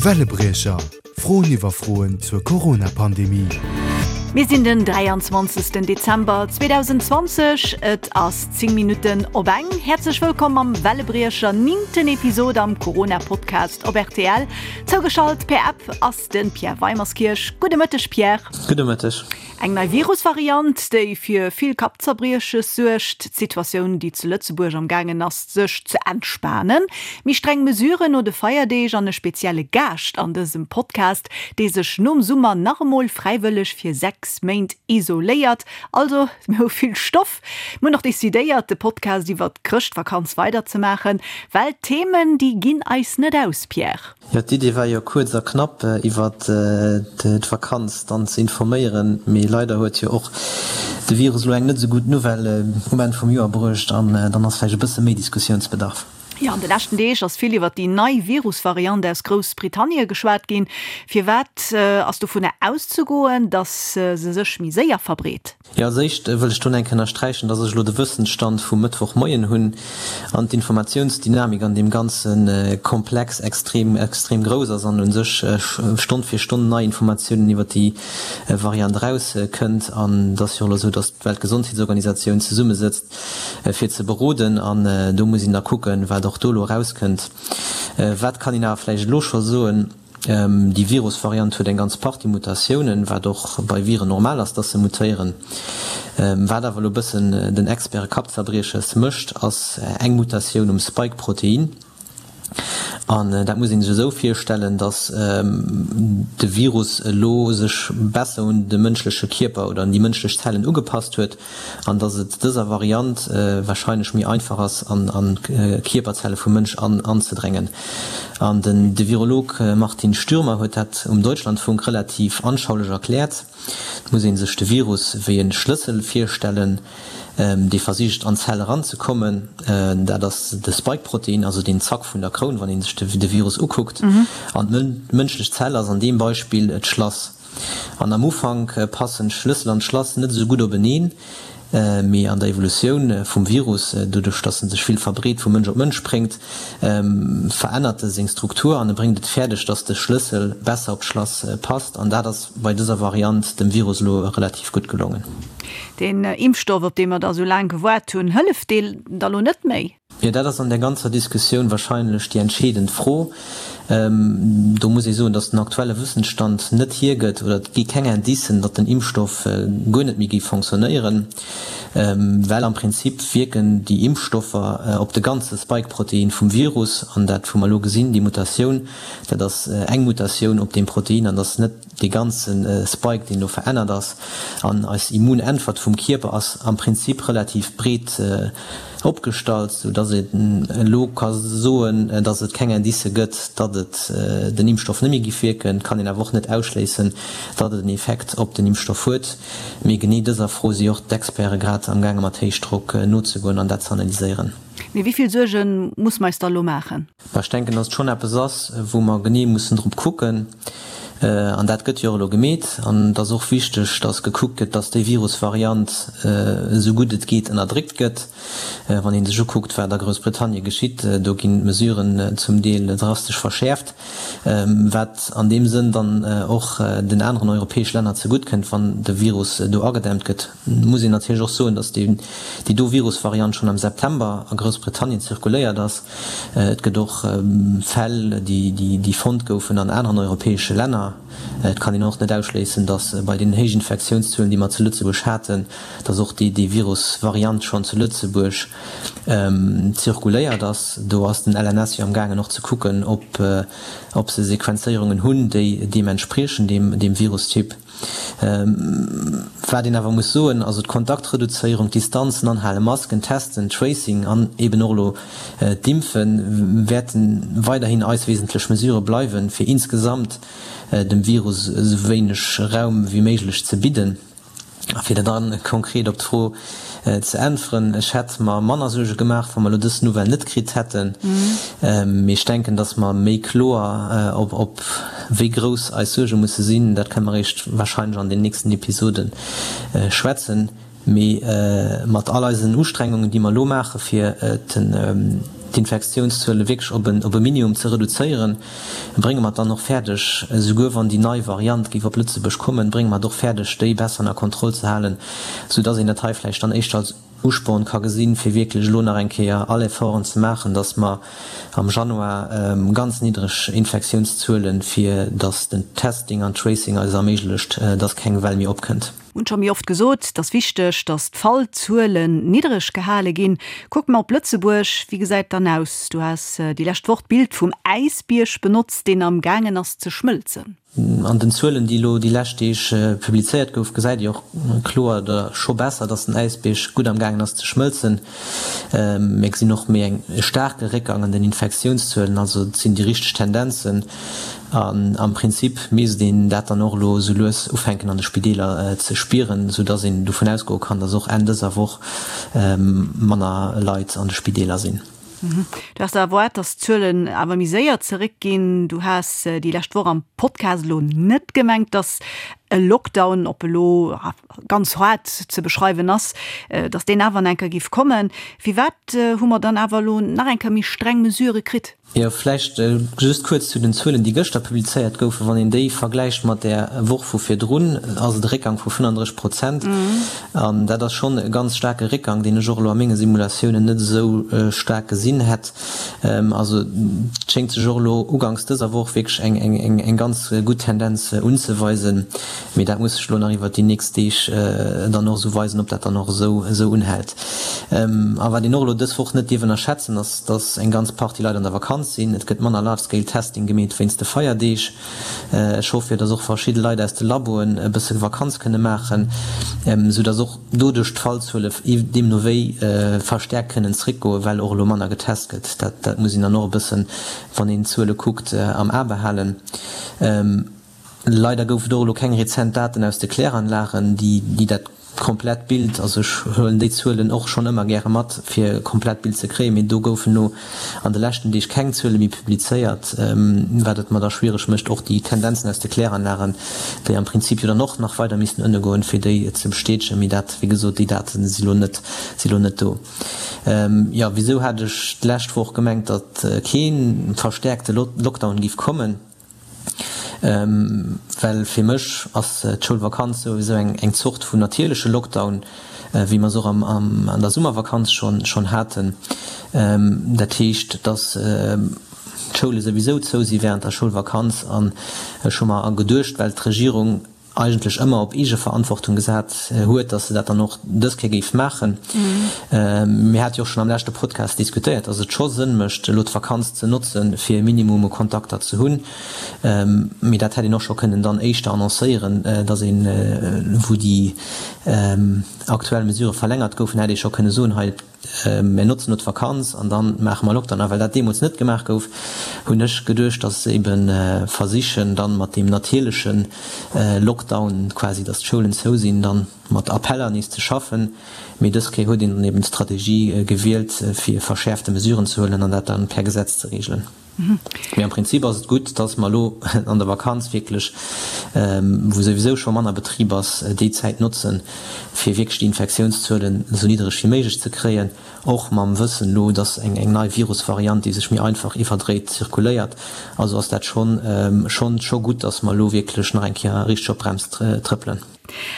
Wellebriecher, Froen iwwer Froen zur Corona-Pandemie. Mir sinn den 23. Dezember 2020, et ass 10 Minutten op eng. Häerzlech wëllkomm am Wellebriecher, nimmten Episod am Corona-Podcast op rtl. Zougeschalt per App ass de Pierre Weimerskirch. Gudde Mëtteg Pierre. Gudde Mëtteg. Eng nei Virusvariant, déi fir vill Kappzerbrieches suergt, d'Situatioun, déi zu Lëtzebuerg am gaangen ass sech ze entspanen, méi streng Mesuren no de Feierdeeg an e spezielle Gaascht an dësem Podcast, dee sech nom Summer nach emol fräiwëlleg fir 6 Méint isoléiert. Also, mir hu vill Stoff. Mir hunn och decidéiert, de Podcast iwwert d'Chrëschtvakanz weiderzemaachen, well d'Themen, déi ginn eis net aus, Pierre. Jo, d'Idee war jo kuerz a knapp iwwert d'Vakanz dann ze informéieren, mee leider huet jo och de Virus elo eng net esou gutt Nouvelle um Enn vum Joer bruecht an dann ass vläicht e bësse méi Diskussiounsbedarf. Jo, an de leschten Deeg ass vill iwwert déi nei Virusvariant aus Groussbritannie geschwat ginn. Firwat ass dovunner auszegoen, datt se sech méi séier verbreet? Jo, als éischt wëll ech do eng Kéier ënnersträichen, dass ech elo de Wëssensstand vum Mëttwochmoien hunn an d'Informatiounsdynamik an deem ganze Komplex extrem, extrem grouss ass an u sech Stonn fir Stonn nei Informatiounen iwwert déi Variant erauskënnt. An et ass jo och elo esou, dass d'Weltgesondheetsorganisatioun zesummesëtzt fir ze beroden an do muss een da kucken, wat och do elo erauskënnt. Wat kann een awer vläicht elo scho soen? Déi Virusvariant huet eng ganz Partie Mutatiounen, wat och bei Viren normal ass, dass se mutéieren. Wat awer elo e bëssen den Experte Kappzerbrieches mécht, ass eng Mutatioun um Spike-Protein. An dat muss ee sech esou virstellen, dass de Virus elo sech besser un de mënschleche Kierper oder un déi mënschlech Zellen ugepasst huet. an dass et dëser Variant wahrscheinlech méi einfach ass an d'Kierperzelle vum Mënsch anzedrängen. An den de Virolog Martin Stürmer huet dat um Deutschlandfunk relativ anschaulech erkläert. Et muss ee sech de Virus wéi e Schlëssel virstellen, dee versicht an d'Zell eranzekommen. Dat ass de Spike-Protein, also deen Zack vun der Kroun, wann ee sech de Virus ukuckt. An d'mënschlech Zell ass an deem Beispill d'Schlass. An am Ufank passen Schlëssel an Schlass net esou gutt openeen, mee an der Evolutioun vum Virus, doduerch dass en sech vill verbreet, vu Mënsch op Mënsch spréngt, verännert e seng Struktur an e bréngt et fäerdeg, dass de Schlëssel besser op d'Schlass passt. An dat ass bei dëser Variant dem Virus elo relativ gutt gelongen. Deen Impfstoff, op dee mer da sou laang gewaart hunn, hëlleft dee da lo net méi? Jo, dat ass an där ganzer Diskussioun wahrscheinlech déi entscheedend Fro. Do muss ee soen, datt den aktuelle Wëssensstand net hiergëtt oder et gi keng Indicen, datt den Impfstoff guer net méi géif fonctionnéieren, well am Prinzip wierken déi Impfstoffer op de ganze Spike-Protein vum Virus an dat wou mer elo gesinn, déi Mutatioun, dat ass eng Mutatioun op deem Protein an ass net dee ganze Spike, deen do verännert ass, an eis Immunäntwert vum Kierper ass am Prinzip relativ breet opgestallt, sou dass een elo ka soen, dass et keng Indicë gëtt, datt et den Impfstoff net méi giff wierken. Et kann een awer och net ausschléissen, datt et en Effekt op den Impfstoff huet. Mee genee dëser Fro si och d'Experte grad am gaange mat Héichdrock nozegoen an dat ze analyséieren. Mee wéi vill Suerge muss mer eis da elo maachen? Mä ech denken, dass et schonn eppes ass, wou mer genee mussen drop kucken. An dat gëtt jo och elo gemeet. An et ass och wichteg, dass gekuckt gëtt, dass déi Virusvariant esou gutt et geet ënnerdréckt gëtt. Wann ee sech ukuckt, wat a Groussbritannie geschitt, do ginn d'Mesuren zum Deel drastesch verschäerft, wat an deem Sënn dann och den aneren europäesch Länner zegutt kënnt, wann de Virus do agedämmt gëtt. Muss een natierlech och soen, dass déi do Virusvariant schonn am September a Groussbritannien zirkuléiert ass. Et gëtt och Fäll, déi fonnt goufen an aneren europäesche Länner. Et kann een och net ausschléissen, datt bei deenen héijen Infektiounszuelen, déi mer zu Lëtzebuerg haten, datt och déi Virusvariant schonn zu Lëtzebuerg zirkuléiert ass. Do ass den LNS jo am gaangen och ze kucken, ob se Sequenzéierungen hunn, déi deem entspriechen, deem Virustyp. Wat een awer muss soen, also d'Kontaktreduzéierung, d'Distanzen anhalen, Masken, Testen, Tracing an eben och elo d'Impfe wäerte weiderhin eis wesentlech Mesurë bleiwen, fir insgesamt dem Virus esou wéineg Raum wéi méiglech ze bidden. A fir da konkret op d'Fro ze äntweren, Ech hätt mer manner Suerge gemaach, wa mer elo dës Nouvelle net kritt hätten. Mee ech denken, datt mer méi kloer op wéi grouss eis Suerge musse sinn, dat kënne mer eréischt warscheinlech an den nächsten Episode schwätzen. Mee mat all eisen Ustrengungen, déi mer elo maache fir. d'Infektiounszuele wierklech op en op e Minimum ze reduzéieren, brénge mer et dann och fäerdeg, esouguer wann déi nei Variant géif op Lëtzebuerg kommen, brénge mer et och fäerdeg, déi besser ënner Kontroll ze halen, soudass een dat hei vläicht dann éischter als Usporn ka gesinn, fir wierklech elo nach eng Kéier all Efforten ze maachen, dass mer am Januar ganz niddreg Infektiounszuelen, fir dass den Testing an Tracing eis erméiglecht, dass keng Well méi opkënnt. Hunn scho méi oft gesot, et ass wichteg, dass d'Fallzuelen niddreg gehale ginn. Kucke mer op Lëtzebuerg, wéi gesäit et dann aus? Du has déi lescht Woch d'Bild vum Äisbierg benotzt, deen am gaangen ass ze schmëlzen. An den Zuelen, déi elo déi lescht Deeg publizéiert gouf, gesäit ee och kloer oder scho besser, datt den Äisbierg gutt am gaangen ass ze schmëlzen. Mir gesinn och méi eng e staarke Réckgang an den Infektiounszuelen. Also et sinn déi richteg Tendenzen. An am Prinzip misst een dat dann och elo esou lues ufänken an de Spideeler ze spieren, esou datt een dovun ausgoe kann, datt och Enn dëser Woch manner Leit an de Spideeler sinn. Du has erwaart, datt d'Zuelen awer méi séier zeréckginn. Du has déi lescht Woch am Podcast elo net gemengt, datt e Lockdown, ob elo ganz haart ze beschreiwen ass, datt deen awer nach eng Kéier géif kommen. Firwat hu mer dann awer elo nach eng Kéier méi streng Mesurë kritt? Jo, vläicht just kuerz zu den Zuelen, déi gëschter publizéiert goufen. Wann een déi vergläicht mat där Woch vu virdrun, ass et e Réckgang vu 35 Prozent. An dat ass schonn e ganz staarke Réckgang, deen ech och elo a menge Simulatiounen net esou staark gesinn hätt. Also et schéngt sech och elo uganks dëser Woch wierklech eng ganz gutt Tendenz unzeweisen. Mee dat muss sech elo nach iwwert déi nächst Deeg dann och esou weisen, ob dat dann och esou unhält. A wat een och elo dës Woch net dierf ënnerschätzen, ass, dass eng ganz Partie Leit an der Vakanz sinn. Et gëtt manner Large-Scale Testing gemeet wéinst de Feierdeeg. Ech hoffe jo, dass och verschidde Leit aus de Laboen e bësse Vakanz kënne maachen, sou dass och doduerch d'Fallzuele deemno wéi verstäerkt kënnen zréckgoen, well och elo manner getest gëtt. Dat muss een dann och e bëssen, wann een d'Zuele kuckt, am A behalen. Leider gouf et och elo keng rezent Daten aus de Kläranlagen, déi dat komplett Bild, also ech huelen déi Zuelen och schonn ëmmer gäre mat, fir e komplett Bild ze kréien, mee do goufen elo an de leschten Deeg keng Zuele méi publizéiert, wat et mer da schwiereg mécht, och déi Tendenzen aus de Kläranlagen, déi am Prinzip jo dann och nach weider missten ënne goen, fir déi ze bestätegen. Mee dat, wéi gesot, déi Date si lo net, si lo net do. Jo, wisou hat ech d'lescht Woch gemengt, datt kee verstäerkte Lockdown géif kommen? Well fir mech ass d'Schoulvakanz souwisou eng Zort vun natierleche Lockdown, wéi mer se och an der Summervakanz schonn haten. Dat heescht, datt d'Schoule souwisou zou si wärend der Schoulvakanz. An ech hu mer geduecht, well d'Regierung eigentlech ëmmer op Eegeverantwortung gesat huet, datt se dat dann och dës Kéier géif maachen. Mir hate jo och schonn am leschte Podcast diskutéiert, datt et scho Sënn mécht, elo d'Vakanz ze notzen, fir e Minimum u Kontakter ze hunn. Mee dat hätt een och scho kënnen dann éischter annoncéieren, datt een, wou déi aktuell Mesurë verlängert goufen, hätt ee scho kënne soen, hei, Mir notzen elo d'Vakanz an dann maache mer Lockdown. A well dat deemools net gemaach gouf, hunn ech geduecht, dass se ebe versichen, dann mat deem natierleche Lockdown quasi, dass d'Schoulen zou sinn, dann mat Appeller nees ze schaffen. Mee dës Kéier huet een dann eben d'Strategie gewielt, fir verschäerfte Mesuren ze huelen an dat dann per Gesetz ze reegelen. Mee am Prinzip ass et gutt, dass mer elo an der Vakanz wierklech, wou souwisou scho manner Betrib ass, déi Zäit notzen, fir wierklech déi Infektiounszuelen esou niddereg wéi méiglech ze kréien, och mam Wëssen elo, dass eng nei Virusvariant, déi sech méi einfach iwwerdréit, zirkuléiert. Also ass dat schonn, schonn, scho gutt, dass mer elo wierklech nach eng Kéier richteg op d'Brems trëppelen.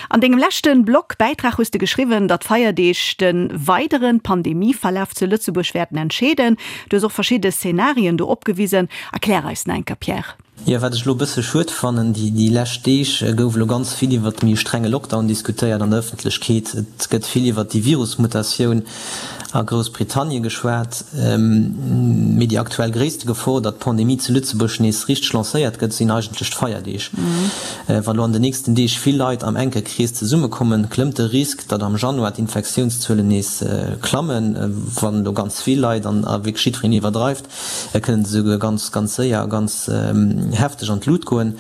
An dengem leschte Blog Bäitrag hues de geschriwwen, datt d'Feierdeeg de weidere Pandemieverlaf zu Lëtzebuerg wäerten entscheeden. Du hues och verschidde Szenarien do opgewisen. Erklär eis nach eng Kéier, Pierre. Jo, wat ech elo e bësse schued fannen, déi lescht Deeg gouf elo ganz vill iwwert de méi strenge Lockdown diskutéiert an der Ëffentlechkeet. Et gëtt vill iwwert déi Virusmutatioun a Groussbritannie geschwat. Mee déi aktuell gréisste Gefor, datt d'Pandemie zu Lëtzebuerg nees richteg lancéiert gëtt, sinn eigentlech d'Feierdeeg. Wa lo an den nächsten Deeg vill Leit am enke Krees zesummekommen, klëmmt de Risk, datt am Januar d'Infektiounszuelen nees klammen. Wann elo ganz vill Leit an a wierklech jiddwereen iwwerdreift, kënnen se esouguer ganz, ganz séier a ganz. hefteg an d'Lut goen.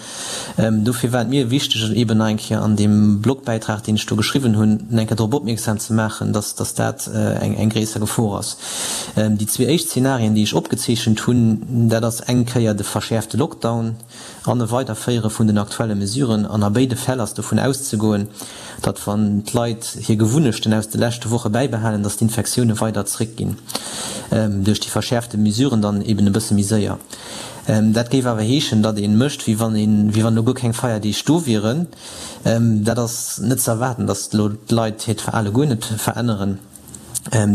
Dofir war et mir wichteg, eeben nach eng Kéier an deem Blogbäitrag, deen ech do geschriwwen hunn, nach eng Kéier drop opmierksam ze maachen, dass dass dat eng eng gréisser Gefor ass. Déi zwee éischt Zenarien, déi ech opgezeechent hunn, dat ass eng Kéier de verschäerfte Lockdown an e Weiderféiere vun den aktuelle Mesuren. An a béide Fäll ass dovun auszegoen, datt wann d'Leit hir Gewunnechten aus de leschte Woche bäibehalen, datt d'Infektioune weider zréckginn, duerch déi verschäerfte Mesuren dann eben e bësse méi séier. Dat géif awer heeschen, datt ee mécht, wéi wann een, wéi wann elo guer keng Feierdeeg do wieren. Dat ass net ze erwaarden, datt elo d'Leit hiert Verhale guer net veränneren.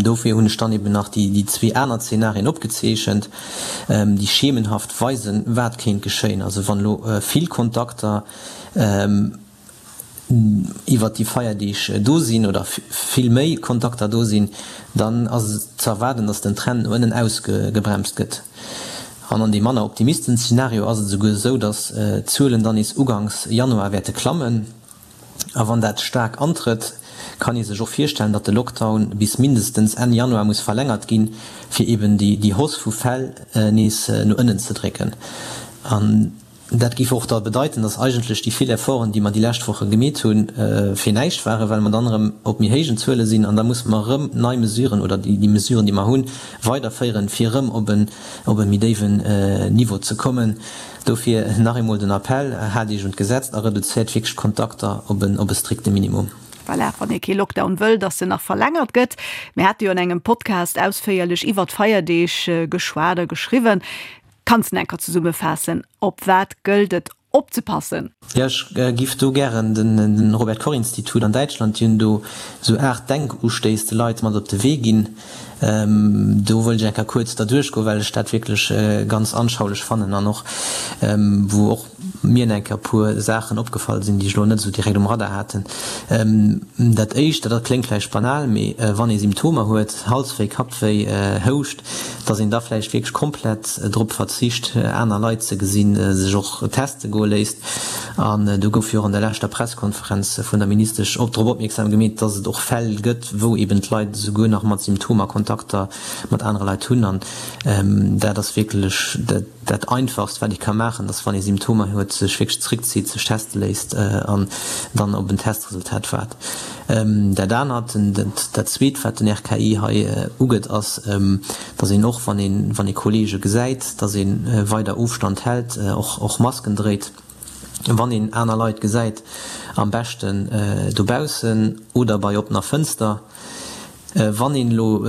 Dofir hunn ech dann eben nach déi zwee aner Zenarien opgezeechent, déi schemenhaft weisen, wat kéint geschéien. Also wann elo vill Kontakter iwwert déi Feierdeeg do sinn oder vill méi Kontakter do sinn, dann ass et ze erwaarden, datt den Trend no ënnen ausgebremst gëtt. An an deem manner optimisten Zenario ass et esouguer esou, datt d'Zuelen dann nees uganks Januar wäerte klammen. A wann dat staark antrëtt, kann ee sech och virstellen, datt de Lockdown bis mindestens Enn Januar muss verlängert ginn, fir eben déi Hausse vu Fäll nees no ënnen ze drécken. An dat géif och da bedeiten, datt eigentlech déi vill Efforten, déi mer déi lescht Woche gemeet hunn, fir näischt waren, well mer dann erëm op méi héijen Zuele sinn an da musse mer erëm nei Mesuren oder déi Mesuren, déi mer hunn, weiderféieren, fir erëm op e méi déiwen Niveau ze kommen. Dofir nach eemol den Appell, Haalt Iech un d'Gesetz a reduzéiert wierklech d'Kontakter op e strikte Minimum. Voilà, wann ee kee Lockdown wëll, dass en nach verlängert gëtt. Mir hate jo an engem Podcast ausféierlech iwwert d'Feierdeeg geschwat a geschriwwen. Kanns de enker zesummefaassen, op wat gëllt et opzepassen? Jo, ech giff do gären den Robert Koch Institut an Däitschland, déi hunn do esou 8 Denkustéiss de Leit mat op de Wee ginn. Do wëllt ech eng Kéier kuerz derduerch goen, well ech dat wierklech ganz anschaulech fannen an och wou och mir eng Kéier e puer Saachen opgefall sinn, déi ech elo net esou direkt um Radar haten. Dat éischt, dat kléngt vläicht banal, mee wann ee Symptomer huet, Halswéi, Kappwéi, Houscht, dass een da vläicht wierklech komplett drop verzicht, aner Leit ze gesinn, sech och teste goe léisst. An do gouf jo och an der leschter Presskonferenz vun der Ministesch och drop opmierksam gemeet, dass et och Fäll gëtt, wou eben d'Leit esouguer nach mat Symptomer Kontakter mat anere Leit hunn. An dat ass wierklech dat Einfachst, wat ee ka maachen, dass wann ee Symptomer huet, sech wierklech zréckzitt, sech teste léisst an dann op en Testresultat waart. Dat anert, dat Zweet, wat den RKI hei ugëtt, ass, dass een och, wann een, wann ee Kollege gesäit, dass ee weider Ofstand hält, och, och Masken dréit, wann een aner Leit gesäit, am beschten dobaussen oder bei oppener Fënster. Wann een elo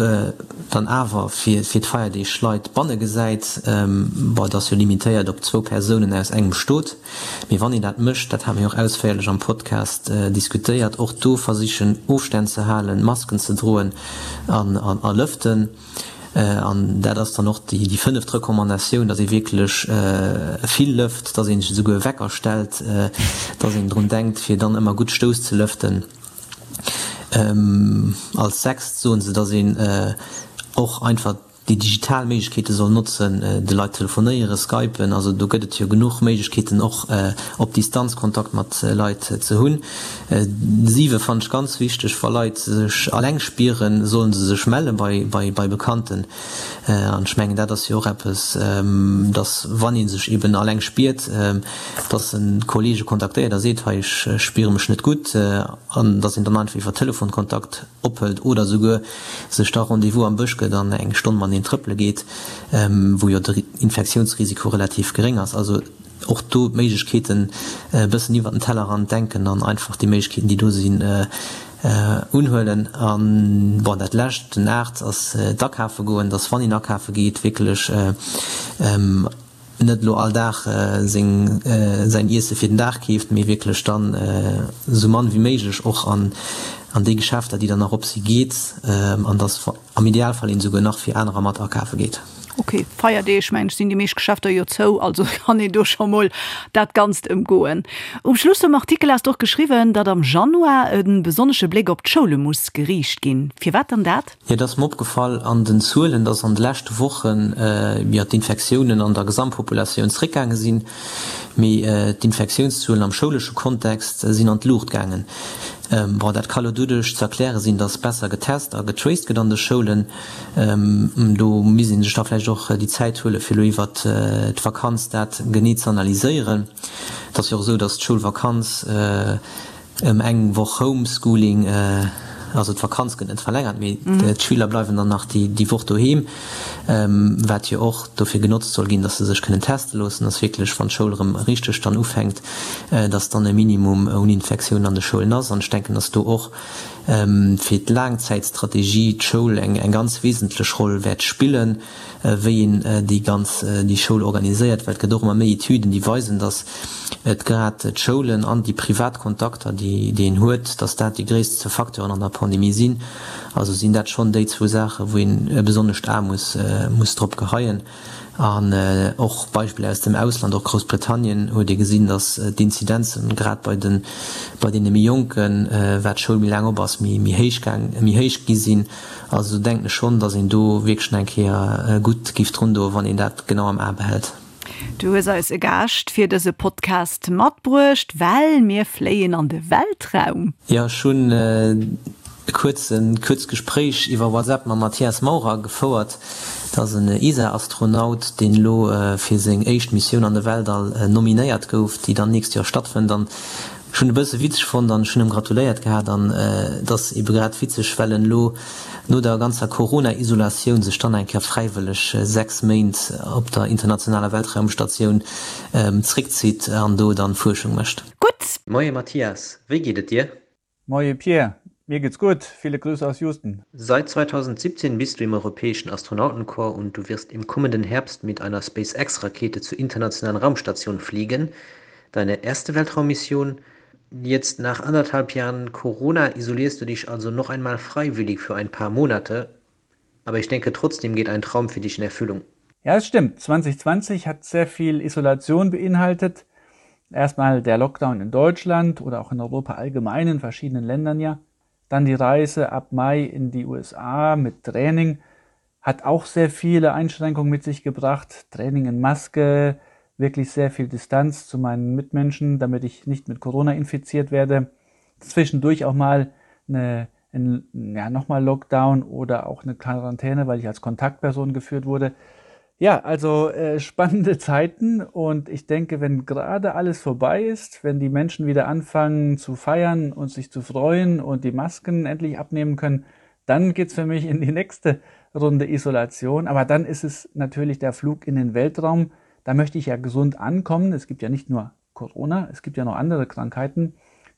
dann awer fir d'Feierdeeg Leit banne gesäit, bon, et ass jo limitéiert op zwou Persounen aus engem Stot, mee wann een dat mécht, dat hate mir jo och ausféierlech am Podcast diskutéiert, och do versichen Ofstänn ze halen, Masken ze droen an a lëften. An dat ass dann och déi fënneft Recommandatioun, datt ee wierklech vill lëft, datt ee sech esouguer Wecker stellt, datt een drun denkt, fir dann ëmmer gutt Stouss ze lëften. Als sechst soen se, datt een och einfach déi digital Méiglechkeete soll notzen, de Leit telefonéieren, skypen, also do gëtt et jo genuch Méiglechkeeten och op Distanz Kontakt mat Leit ze hunn. Siwe fannen ech ganz wichteg, wa Leit sech alleng spieren, sollen se sech melle bei Bekannten. An ech mengen, dat ass jo och eppes, dass, wann ee sech eben alleng spiert, dass en Kollege kontaktéiert a seet, hei, ech spiere mech net gutt, an dass een dann einfach iwwer Telefon Kontakt ophëlt oder souguer sech da Rendez-vous am Bësch gëtt an eng Stonn mateneen trëppele geet, wou jo de Infektiounsrisiko relativ geréng ass. Also och do d'Méiglechkeeten e bëssen iwwer den Tellerrand denken an einfach déi Méiglechkeeten, déi do sinn, unhuelen. An, bon, dat Lescht, den 8, ass d'Akafe goen, dass wann een akafe geet, wierklech net elo all Dag seng, säin Iesse fir den Dag keeft, mee wierklech dann esou mann wéi méiglech och an déi Geschäfter, déi dann nach op si geet, an dass am Idealfall een esouguer nach fir anerer mat akafe geet. Ok, Feierdeeg mengen ech sinn déi meescht Geschäfter jo zou, also kann een do scho mol dat Ganzt ëmgoen. Um Schluss vum Artikel has de och geschriwwen, datt am Januar e besonnesche Bléck op d'Schoule muss geriicht ginn. Firwat dann dat? Jo, et ass mer opgefall an den Zuelen, datt an de leschte Wochen, jo, d'Infektiounen an der Gesamtpopulatioun zréckgaange sinn, mee d'Infektiounszuelen am schoulesche Kontext sinn an d'Luucht gaangen. Bon, dat ka lo doduerch ze erkläre sinn, datt besser getest a getraced gëtt an de Schoulen. Do misst ee sech da vläicht och déi Zäit huelen, fir elo iwwert d'Vakanz dat genee ze analyséieren. Et ass jo och esou, datt d'Schoulvakanz ëm eng Woch Homeschooling, also d'Vakanz gëtt net verlängert, mee d'Schüler bleiwen dann nach déi Woch doheem, wat jo och dofir genotzt soll ginn, datt se sech kënnen teste loossen, datt wierklech, wann d'Schoul erëm richteg dann ufänkt, datt dann e Minimum un Infektiounen an de Schoulen ass. An ech denken, datt do och fir d'Laangzäitstrategie d'Schoul eng ganz wesentlech Roll wäert spillen, wéi een déi ganz déi Schoul organiséiert, well et gëtt och ëmmer méi Etüden, déi weisen, datt et grad d'Schoulen an déi privat Kontakter, déi déi een huet, datt dat déi gréisst Facteuren an der Pandemie sinn. Also sinn dat schonn déi zwou Saachen, wou een e besonnescht A muss muss drop geheien. An och Beispiller aus dem Ausland, och Groussbritannien, huet ee gesinn, datt d'Inzidenzen grad bei de bei deene méi Jonken, wat d'Schoul méi laang op ass, méi méi héich gaang méi héich gi sinn. Also do denken ech schonn, datt een do wierklech nach eng Kéier gutt géif drun doen, wann een dat genau am A behält. Du hues eis e Gaascht fir dëse Podcast matbruecht, well mir fléien an de Weltraum. Jo, ech hunn e kuerzen kuerzt Gespréich iwwer WhatsApp mam Matthias Maurer gefouert. Dat ass en ESA-Astronaut, deen elo fir seng éischt Missioun an de Weltall nominéiert gouf, déi dann nächst Joer stattfënnt. An Ech hunn e bësse witzeg fonnt an ech hunn em gratuléiert gehat an et ass ebe grad witzeg, well en elo no der ganzer Corona-Isolatioun sech dann eng Kéier fräiwëlleg 6 Méint op der internationaler Weltraumstatioun zréckzitt an do dann Fuerschung mécht. Gutt! Moie Mathias, wéi geet et dir? Moie Pierre, mir geht's gutt, viele Grüße aus Houston. Seit 2017 bist du im Europäischen Astronautenkorps und du wirst im kommenden Herbst mit einer SpaceX-Rakete zur internationalen Raumstation fliegen. Deine erste Weltraummission jetzt nach anderthalb Jahren Corona isolierst du dich also noch einmal freiwillig für ein paar Monate. Aber ich denke trotzdem geht ein Traum für dich in Erfüllung. Ja, es stimmt. 2020 hat sehr viel Isolation beinhaltet. Erstmal der Lockdown in Deutschland oder auch in Europa allgemein in verschiedenen Ländern ja. Dann die Reise ab Mai in die USA mit Training hat auch sehr viele Einschränkungen mit sich gebracht. Training in Maske, wirklich sehr viel Distanz zu meinen Mitmenschen, damit ich nicht mit Corona infiziert werde. Zwischendurch auch mal eine, ein, ja, nochmal Lockdown oder auch eine Quarantäne, weil ich als Kontaktperson geführt wurde. Ja, also äh, spannende Zeiten und ich denke, wenn gerade alles vorbei ist, wenn die Menschen wieder anfangen zu feiern und sich zu freuen und die Masken endlich abnehmen können, dann geht's für mich in die nächste Runde Isolation. Aber dann ist es natürlich der Flug in den Weltraum. Da möchte ich ja gesund ankommen. Es gibt ja nicht nur Corona, es gibt ja noch andere Krankheiten.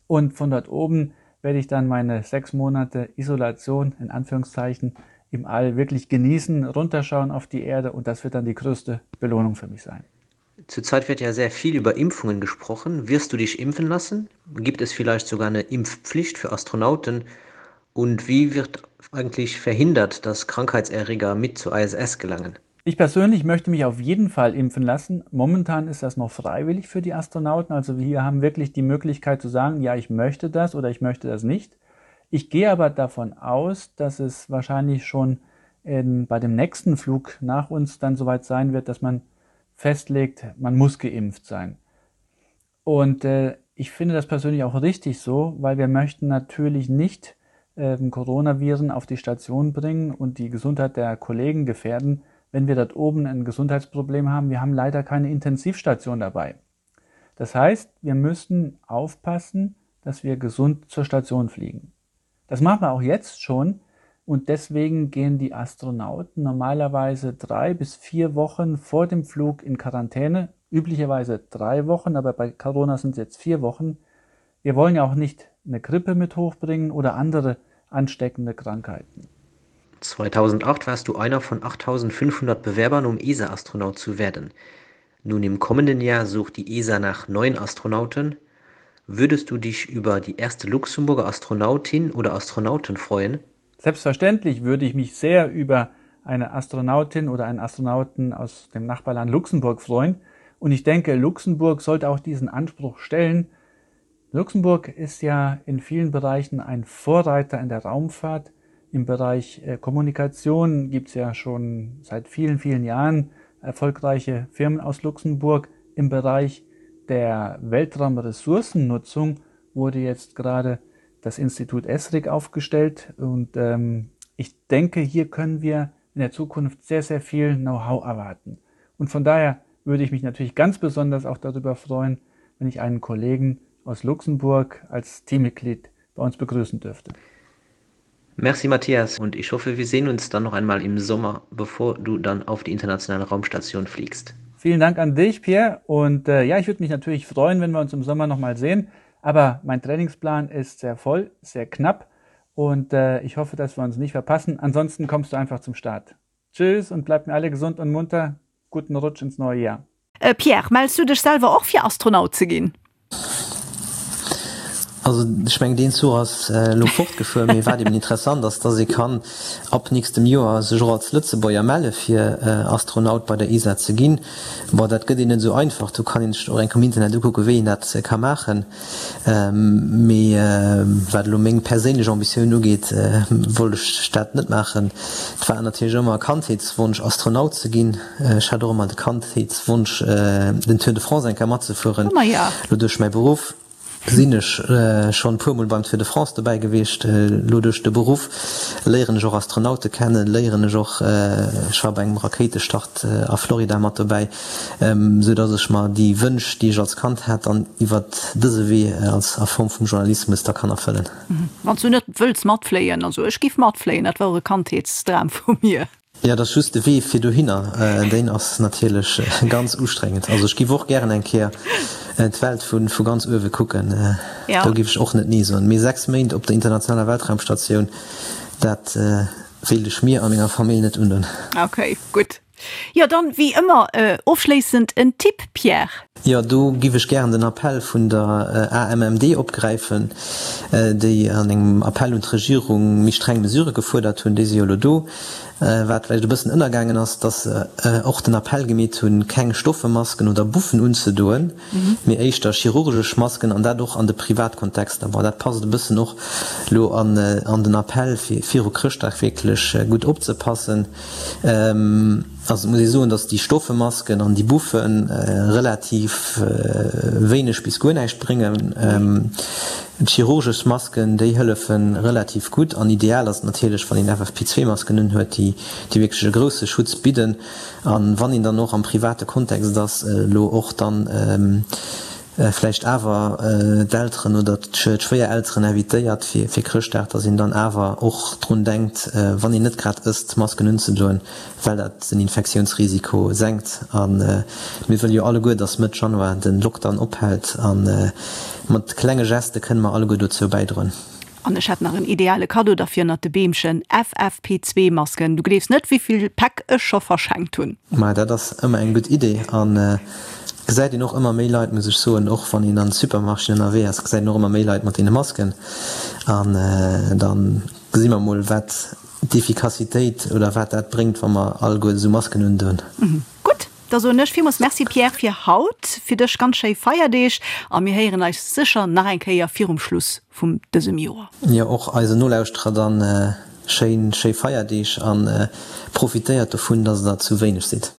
Und von dort oben werde ich dann meine sechs Monate Isolation in Anführungszeichen im All wirklich genießen, runterschauen auf die Erde und das wird dann die größte Belohnung für mich sein. Zurzeit wird ja sehr viel über Impfungen gesprochen. Wirst du dich impfen lassen? Gibt es vielleicht sogar eine Impfpflicht für Astronauten? Und wie wird eigentlich verhindert, dass Krankheitserreger mit zur ISS gelangen? Ich persönlich möchte mich auf jeden Fall impfen lassen. Momentan ist das noch freiwillig für die Astronauten. Also wir haben wirklich die Möglichkeit zu sagen, ja, ich möchte das oder ich möchte das nicht. Ich gehe aber davon aus, dass es wahrscheinlich schon in, bei dem nächsten Flug nach uns dann soweit sein wird, dass man festlegt, man muss geimpft sein. Und äh, ich finde das persönlich auch richtig so, weil wir möchten natürlich nicht äh, Coronaviren auf die Station bringen und die Gesundheit der Kollegen gefährden, wenn wir dort oben ein Gesundheitsproblem haben. Wir haben leider keine Intensivstation dabei. Das heißt, wir müssen aufpassen, dass wir gesund zur Station fliegen. Das machen wir auch jetzt schon und deswegen gehen die Astronauten normalerweise drei bis vier Wochen vor dem Flug in Quarantäne, üblicherweise drei Wochen, aber bei Corona sind es jetzt vier Wochen. Wir wollen ja auch nicht eine Grippe mit hochbringen oder andere ansteckende Krankheiten. 2008 warst du einer von 8500 Bewerbern, um ESA-Astronaut zu werden. Nun im kommenden Jahr sucht die ESA nach neuen Astronauten. Würdest du dich über die erste Luxemburger Astronautin oder Astronauten freuen? Selbstverständlich würde ich mich sehr über eine Astronautin oder einen Astronauten aus dem Nachbarland Luxemburg freuen. Und ich denke, Luxemburg sollte auch diesen Anspruch stellen. Luxemburg ist ja in vielen Bereichen ein Vorreiter in der Raumfahrt. Im Bereich äh, Kommunikation gibt es ja schon seit vielen, vielen Jahren erfolgreiche Firmen aus Luxemburg. Im Bereich der Weltraumressourcennutzung wurde jetzt gerade das Institut ESRIC aufgestellt und ähm, ich denke, hier können wir in der Zukunft sehr, sehr viel Know-how erwarten. Und von daher würde ich mich natürlich ganz besonders auch darüber freuen, wenn ich einen Kollegen aus Luxemburg als Teammitglied bei uns begrüßen dürfte. Merci Matthias und ich hoffe, wir sehen uns dann noch einmal im Sommer, bevor du dann auf die internationale Raumstation fliegst. Vielen Dank an dich, Pierre. Und äh, ja, ich würde mich natürlich freuen, wenn wir uns im Sommer noch mal sehen. Aber mein Trainingsplan ist sehr voll, sehr knapp und äh, ich hoffe, dass wir uns nicht verpassen. Ansonsten kommst du einfach zum Start. Tschüss und bleibt mir alle gesund und munter. Guten Rutsch ins neue Jahr. Äh, Pierre, mells du dech selwer och fir Astronaut ze ginn? Also ech mengen deen Zuch ass elo fortgefuer, mee wat eben interessant ass, dass ee kann ab nächstem Joer sech och als Lëtzebuerger melle fir Astronaut bei der ESA ze ginn. Bon, dat gëtt een net esou einfach, do kann een sech och enk am Internet ukucken, wéi een dat ka maachen. Mee wat elo meng perséinlech Ambitioun ugeet, wollt ech dat net maachen. Et war natierlech ëmmer e Kandheetswonsch Astronaut ze ginn. Ech hat och ëmmer de Kandheetswonsch den Tour de France eng Kéier matzefueren. Elo duerch mäi Beruff sinn ech schonn e puer Mol beim Tour de France dobäi gewiescht. Elo duerch de Beruff léieren ech och Astronaute kennen, léieren ech och, ech war bei engem Rakéitestart a Florida mat dobäi, sou datt ech mer déi Wënsch, déi ech als Kand hat, dann iwwert dëse Wee als a Form vum Journalismus da kann erfëllen. Wann s du net wëlls matfléien, also ech giff matfléien, dat war och e Kandheetsdram vu mir. Jo, et ass just de Wee fir dohinner, deen ass natierlech ganz ustrengend. Also ech giff och gären eng Kéier d'Welt vu ganz uewe kucken, do giff ech och net nee soen. Mee 6 Méint op der internationaler Weltraumstatioun, dat wéilt ech mir a menger Famill net undoen. Ok, gutt. Jo, dann wéi ëmmer ofschléissend en Tipp, Pierre? Jo, do giff ech gären den Appell vun der AMMD opgräifen, déi an engem Appell un d'Regierung méi streng Mesurë gefuerdert hunn. Déi si jo elo do. Wat vläicht e bëssen ënnergaangen ass, dass se och den Appell gemeet hunn, keng stoffe Masken oder Buffen unzedoen, mee éischter chirurgesch Masken, an dat och an de Privatkontexter. Bon, dat passt e bëssen och elo an den Appell, fir viru Chrëschtdag wierklech gutt opzepassen. Also et muss ee soen, datt déi stoffe Masken an déi Buffe relativ wéineg bis guer näischt bréngen. D'chirurgesch Masken, déi hëllefe relativ gutt an ideal ass et natierlech, wann een FFP2-Masken unhuet, déi wierklech e grousse Schutz bidden. A wann een dann och am private Kontext ass, elo och dann vläicht awer d'Elteren oder d'Schwéierelteren invitéiert fir Chrëschtdag, dass een dann awer och drun denkt, wann een net grad ësst, Masken unzedoen, well dat den Infektiounsrisiko senkt. A mir wëlle jo alleguer, dass Mëtt Januar de Lockdown ophält a mat klenge Geste kënne mer alleguer dozou bäidroen. An ech hätt nach en ideale Kaddo derfir ënnert de Beemchen, FFP2 Masken. Du gleefs net wéivill Päck ech scho verschenkt hunn. Maja dat ass ëmmer eng gutt Idee an gesäit een och ëmmer méi Leit, muss ech soen, och wann een an Supermarchéen ënnerwee ass, gesäit een och ëmmer méi Leit mat deene Masken an dann gesi mer mol wat d'Efficacitéit oder wat dat bréngt wa mer alleguer esou Masken undoen. Gutt, da soen ech villmools Merci Pierre fir haut, fir dech ganz schéi Feierdeeg a mir héieren eis sécher nach eng Kéier virum Schluss vum dësem Joer. Jo, och eisen Nolauschterer dann schéin schéi Feierdeeg an profitéiert dovun, dass der zu wéineg sidd.